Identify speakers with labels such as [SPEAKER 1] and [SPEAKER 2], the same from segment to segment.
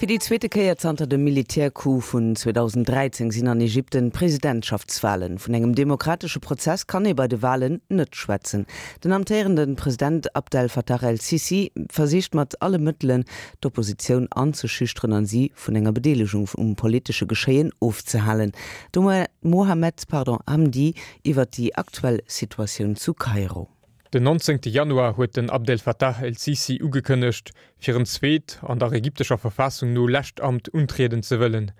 [SPEAKER 1] Fir déi zweete Kéier zanter dem Militärcoup vun 2013 sinn an Ägypten Presidentschaftswalen. Vun engem demokratesche Prozess kann ee bei de Walen net schwätzen. Den amtéierende President Abdel Fattah el-Sissi versicht mat alle Mëttelen, d'Oppositioun anzeschüchteren an si vun enger Bedeelegung um politesche Geschéien ofzehalen. De Mohamed Hamdi iwwer déi aktuell Situatioun zu Kairo.
[SPEAKER 2] Den 19 Januar huet den Abdel Fattah el-Sisi ugekënnegt, fir en zweet, an der ägyptescher Verfassung no lescht Amt untrieden ze wëllen.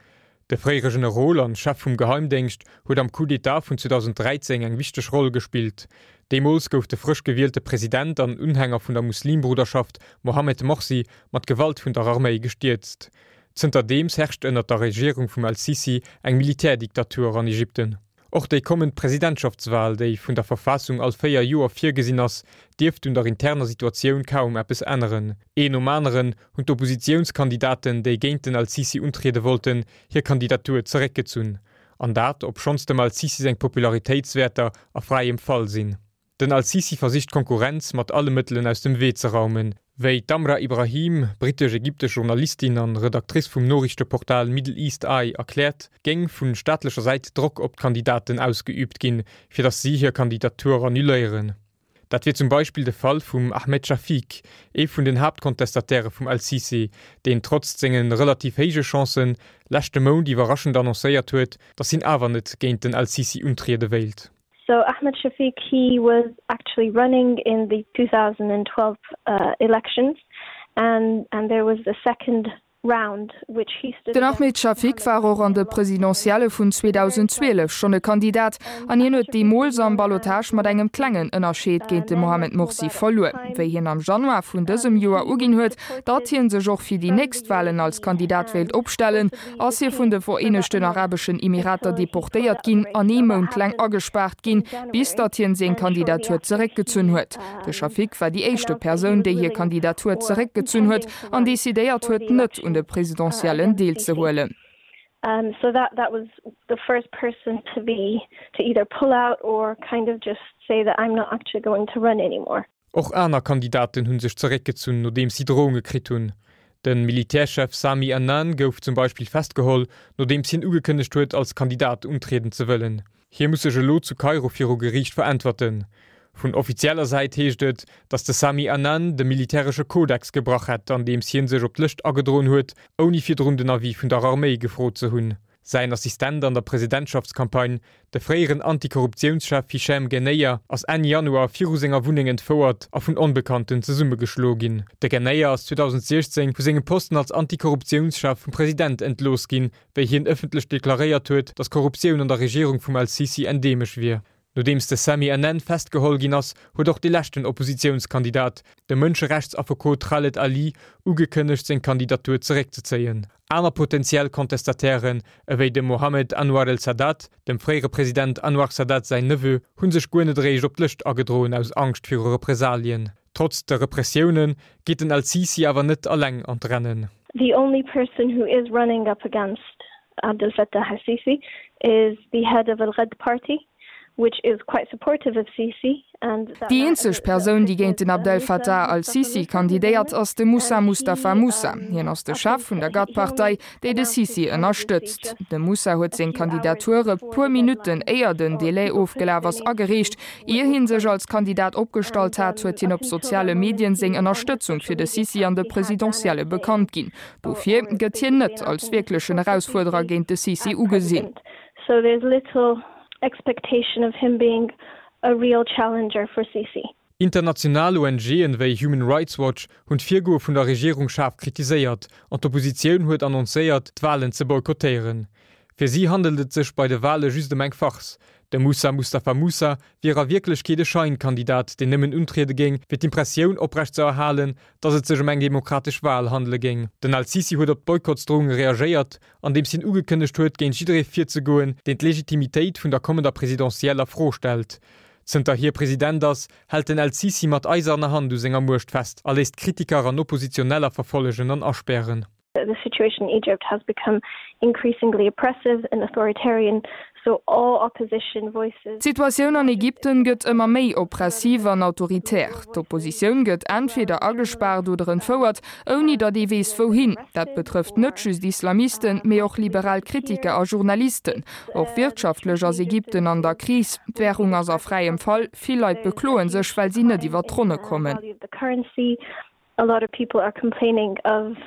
[SPEAKER 2] De fréiere Generol an Chef vum Geheimdéngscht huet am Coup d'État vun 2013 eng wichteg Roll gespillt. Deemools gouf de frësch gewielte President an Unhänger vun der Muslimbruderschaft Mohammed Morsi mat Gewalt vun der Arméi gestierzt. Zënterdeems herrscht ënnert der Regierung vum el-Sisi eng Militärdiktatur an Ägypten. Och déi kommend Presidentschaftswal, déi vun der Verfassung all 4 Joer virgesinn ass, dierft un der interner Situatioun kaum eppes änneren. Een nom aneren hunn d'Oppositiounskandidaten, déi géint den Al-Sisi untriede wollten, hir Kandidatur zeréckgezunn. An dat, obschonns dem Al-Sisi seng Popularitéitswäerter a fräiem Fall sinn. Den Al-Sisi versicht d'Konkurrenz mat alle Mëttelen aus dem Wee ze raumen. Wéi d'Amra Ibrahim, brittesch-ägyptesch Journalistin an Redactrice vum Noriichteportal Middle East Eye erkläert, géing vu staatlecher Säit Drock op d'Kandidaten ausgeüübt ginn, fir datt si hir Kandidatur annuléieren. Dat wier zum Beispill de Fall vum Ahmed Shafik, ee vun den Haaptcontestataire vum Al-Sisi, deen trotz senge relativ héije Chancen, leschte Mount iwwerraschend annoncéiert huet, datt hien awer net géint den Al-Sisi untriede wéilt.
[SPEAKER 3] So Ahmed Shafiq he was actually running in the 2012 uh, elections and and there was the second
[SPEAKER 4] Den Ahmed Shafik war och an de Presidentielle vun 2012 schonn e Kandidat an hien huet deemools am Ballotage mat engem klengen Ënnerscheed géint de Mohamed Morsi verluer. Wéi hien am Januar vun dësem Joer uginn huet, datt hie sech och fir déi nächst Walen als Kandidat wéilt opstellen, ass hie vun de Vereenegten Arabeschen Emirater deportéiert ginn an ee Mount laang agespaart ginn, bis datt hien seng Kandidatur zeréckgezunn huet. De Shafik war déi éischte Persoun, déi hir Kandidatur zeréckgezunn huet an decidéiert huet, net un de Presidentiellen deelzehuelen.
[SPEAKER 2] Och aner Kandidaten hu sech zeréckgezunn, nodeems si Drounge kritt hunn. De Militärchef Sami Anan gouf zum Beispill festgeholl, nodeems hien ugekënnegt huet, als Kandidat untrieden ze wëllen. Hie muss sech elo zu Kairo viru Geriicht veräntwerten. Vun offizieller Säit heescht et, datt de Sami Anan de militäresche Kodex gebrach hätt, andeems hie sech op d'Lëscht agedroen huet, ouni virdrun den Avis vun der Arméi gefrot ze hunn. Säin Assistent an der Presidentschaftscampagne, de fréieren Antikorruptiounschef Hichem Ghenneia, ass Enn Januar viru senger Wunneng entfouert a vun Onbekannten zesummegeschloe ginn. De Ghenneia ass 2016 vu sengem Posten als Antikorruptiounschef vum President entlooss ginn, wéi hien ëffentlech deklaréiert huet, datt Korruptioun an der Regierung vum El-Sisi endeemesch wier. Nodeems de Sami Anan festgeholl ginn ass, huet och de leschten Oppositiounskandidat, de Mënscherechtsaffekot Khaled Ali, ugekënnegt seng Kandidatur zeréckzezéien. Aner potentiell Contestatairen, ewéi de Mohammed Anwar el-Sadat, dem fréiere President Anwar Sadat säin Neveu, hu sech guer net eréischt op d'Lëscht agedroen aus Angscht viru Represalien. Trotz de Repressioune geet den El-Sisi awer net alleng an d'Rennen.
[SPEAKER 3] The only person who is running up against Abdel Fattah el-Sisi is the head of Al-Ghad party, which is quite supportive of Sisi and that
[SPEAKER 4] Déi eenzeg Persoun, déi géint den Abdel Fattah al-Sisi kandidéiert, ass de Moussa Mustafa Moussa. Hien ass de Chef vun der Ghad-Partei, déi de Sisi ënnerstëtzt. De Moussa huet seng Kandidatur e puer Minutten éier den Delai ofgelaf ass agereecht. Ier hie sech als Kandidat opgestallt hat, huet hien op soziale Medien seng Ënnerstëtzung fir de Sisi an de Presidentielle bekannt ginn. Dofir gëtt hien net als wierklechen Erausfuerderer géint de Sisi ugesinn.
[SPEAKER 3] So there's little expectation of him being a real challenger for Sisi.
[SPEAKER 2] International ONGen wéi Human Rights Watch hunn d'Virgoe vun der Regierung schaarf kritiséiert an d'Oppositioun huet annoncéiert, d'Walen ze boykottéieren. Fir si handelt et sech bei de Wale just ëm eng Farce. De Moussa Mustafa Moussa wier a Wierklechkeet e Scheinkandidat, deen nëmmen untriede géing, fir d'Impressioun oprecht ze erhalen, datt et sech ëm eng demokratesch Wal handele géing. Den Al-Sisi huet op d'Boykottsdrounge reagéiert, andeems hien ugekënnegt huet, géint jidderee virzegoen, deen d'Legitimitéit vun der kommender Presidentielle a Fro stellt. Zënter hie President ass, hält den El-Sisi mat eiserner Hand u senger Muecht fest a léisst Kritiker an Oppositioneller verfollegen an aspären.
[SPEAKER 3] that the situation in Egypt has become increasingly oppressive and authoritarian, so all opposition voices.
[SPEAKER 4] D'Situatioun an Ägypten gëtt ëmmer méi oppressiv an autoritär. D'Oppositioun gëtt entweder agespaart oder entfouert, ouni datt ee weess wouhin. Dat betrëfft net just Islamisten, mee och liberal Kritiker a Journalisten. Och wirtschaftlech ass Ägypten an der Kris. D'Wärung ass a fräiem Fall, vill Leit bekloe sech, well si net iwwer d'Ronne kommen.
[SPEAKER 3] A lot of people are complaining of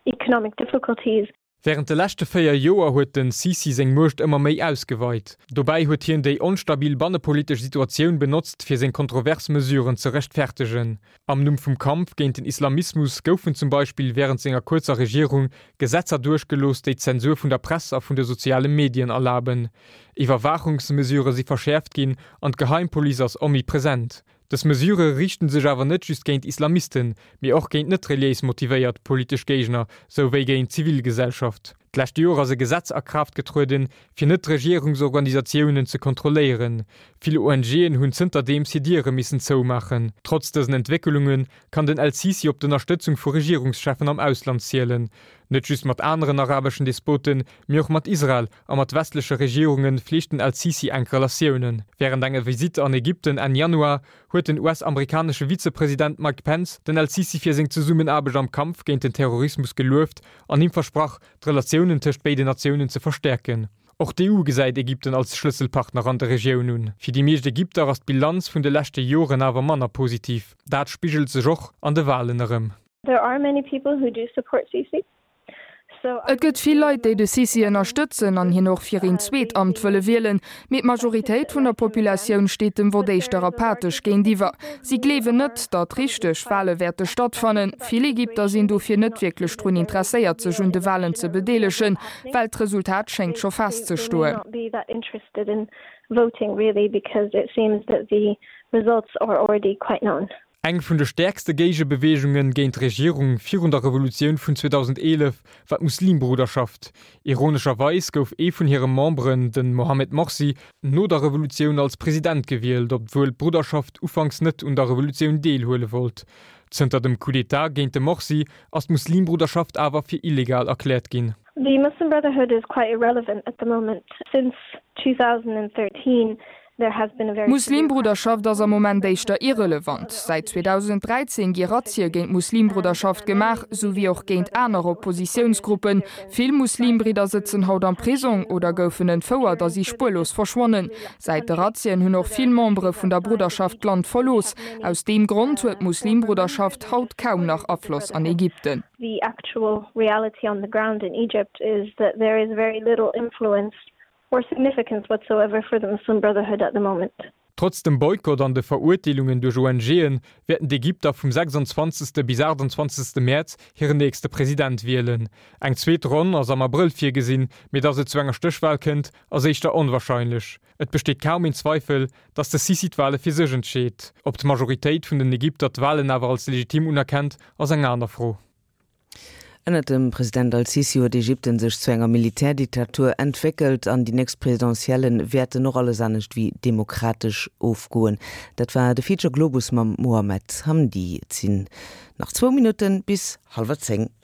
[SPEAKER 3] economic difficulties.
[SPEAKER 2] Wärend de leschte 4 Joer huet den Sisi seng Muecht ëmmer méi ausgeweit. Dobäi huet hien déi onstabil bannepolitesch Situatioun benotzt, fir seng kontrovers Mesuren ze rechtfertegen. Am Numm vum Kampf géint den Islamismus goufen zum Beispill wärend senger kuerzer Regierung Gesetzer duerchgelooss, déi d'Zensur vun der Press a vun de soziale Medien erlaben. Iwwerwaachungsmesurë si verschäerft ginn an d'Geheimpolice ass omnipresent. Dës Mesurë riichten sech awer net just géint Islamisten, mee och géint net reliéis motivéiert politesch Géigner, sou wéi géint d'Zivilgesellschaft. D'lescht Joer ass e Gesetz a Kraaft getrueden, fir Net-Regierungsorganisatiounen ze kontrolléieren. Vill ONGen hunn zënterdeems hir Diere missen zoumaachen. Trotz dësen Entwécklunge kann den El-Sisi op d'Ënnerstëtzung vu Regierungscheffen am Ausland zielen. Net just mat aneren arabeschen Despoten, mee och mat Israel a mat westleche Regierunge fleegt den El-Sisi enk Relatiounen. Wärend enger Visitt an Ägypten Enn Januar huet den US-amerikanesche Vizepresident Mike Pence den El-Sisi fir seng Zesummenaarbecht am Kampf géint den Terrorismus gelueft an him versprach, d'Relatiounen tëscht béiden Natiounen ze verstäerken. Och d'EU gesäit Ägypten als Schlësselpartner an der Regioun un. Fir déi meescht Ägypter ass d'Bilanz vun de leschte Joren awer manner positiv. Dat spigelt sech och an de Walen erëm.
[SPEAKER 3] There are many people who do support Sisi.
[SPEAKER 4] Et gëtt vill Leit, déi de Sisi ënnerstëtzen an hien och fir een zweet Amt wëlle wielen, mee d'Majoritéit vun der Populatioun steet dem Vott éischter apathesch géintiwwer. Si gleewen net, datt richteg Wale wäerte stattfannen. Vill Ägypter sinn dofir net wierklech drun interesséiert, sech un de Walen ze bedeelegen, well d'Resultat schéngt scho festzestoen.
[SPEAKER 2] Eng vun de stäerkste Géigebeweegunge géint d'Regierung virun der Revolutioun vun 2011 war d'Muslimbruderschaft. Ironescherweis gouf ee vun hire Memberen, de Mohammed Morsi, no der Revolutioun als President gewielt, obwuel d'Brudderschaft ufanks net un der Revolutioun deelhuele wollt. Zënter dem Coup d'État géint de Morsi ass d'Muslimbruderschaft awer fir illegal erkläert ginn.
[SPEAKER 3] The Muslim Brotherhood is quite irrelevant at the moment. Since 2013 there has been a very severe
[SPEAKER 4] D'Muslimbruderschaft ass am Moment éischter irrelevant. Säit 2013 gi Razzie géint d'Muslimbruderschaft gemaach, sou wéi och géint aner Oppositiounsgruppen. Vill Muslimbridder sëtzen haut am Prisong oder goufen entfouert a si spuerlos verschwonnen. Säit de Razzien hunn och vill Membere vun der Brudderschaft d'Land verlooss. Aus deem Grond huet d'Muslimbruderschaft haut kaum nach Afloss an Ägypten.
[SPEAKER 3] The actual reality on the ground in Egypt is that there is very little influence or significance whatsoever for the Muslim Brotherhood at the moment.
[SPEAKER 2] Trotz dem Boykott an de Verurteelungen duerch ONGen, wäerten d'Ägypter vum 26. bis 28. Mäerz hiren nächste President wielen. Eng zweet Ronn ass am Abrëll virgesinn, mee datt et zu enger Stéchwal kënnt, ass éischter onwarscheinlech. Et besteet kaum een Zweifel, datt de Sisi d'Wale fir sech entscheet. Ob d'Majoritéit vun den Ägypter d'Walen awer als legitim unerkennt, ass eng aner Fro.
[SPEAKER 1] Ënnert dem President al-Sisi huet Ägypten sech zu enger Militärdiktatur entwéckelt an déi nächst Presidentielle wäerten och alles anescht wéi demokratesch ofgoen. Dat war de Feature Globus mam Mohamed Hamdi. Et sinn nach zwou Minutte bis hallwer 10.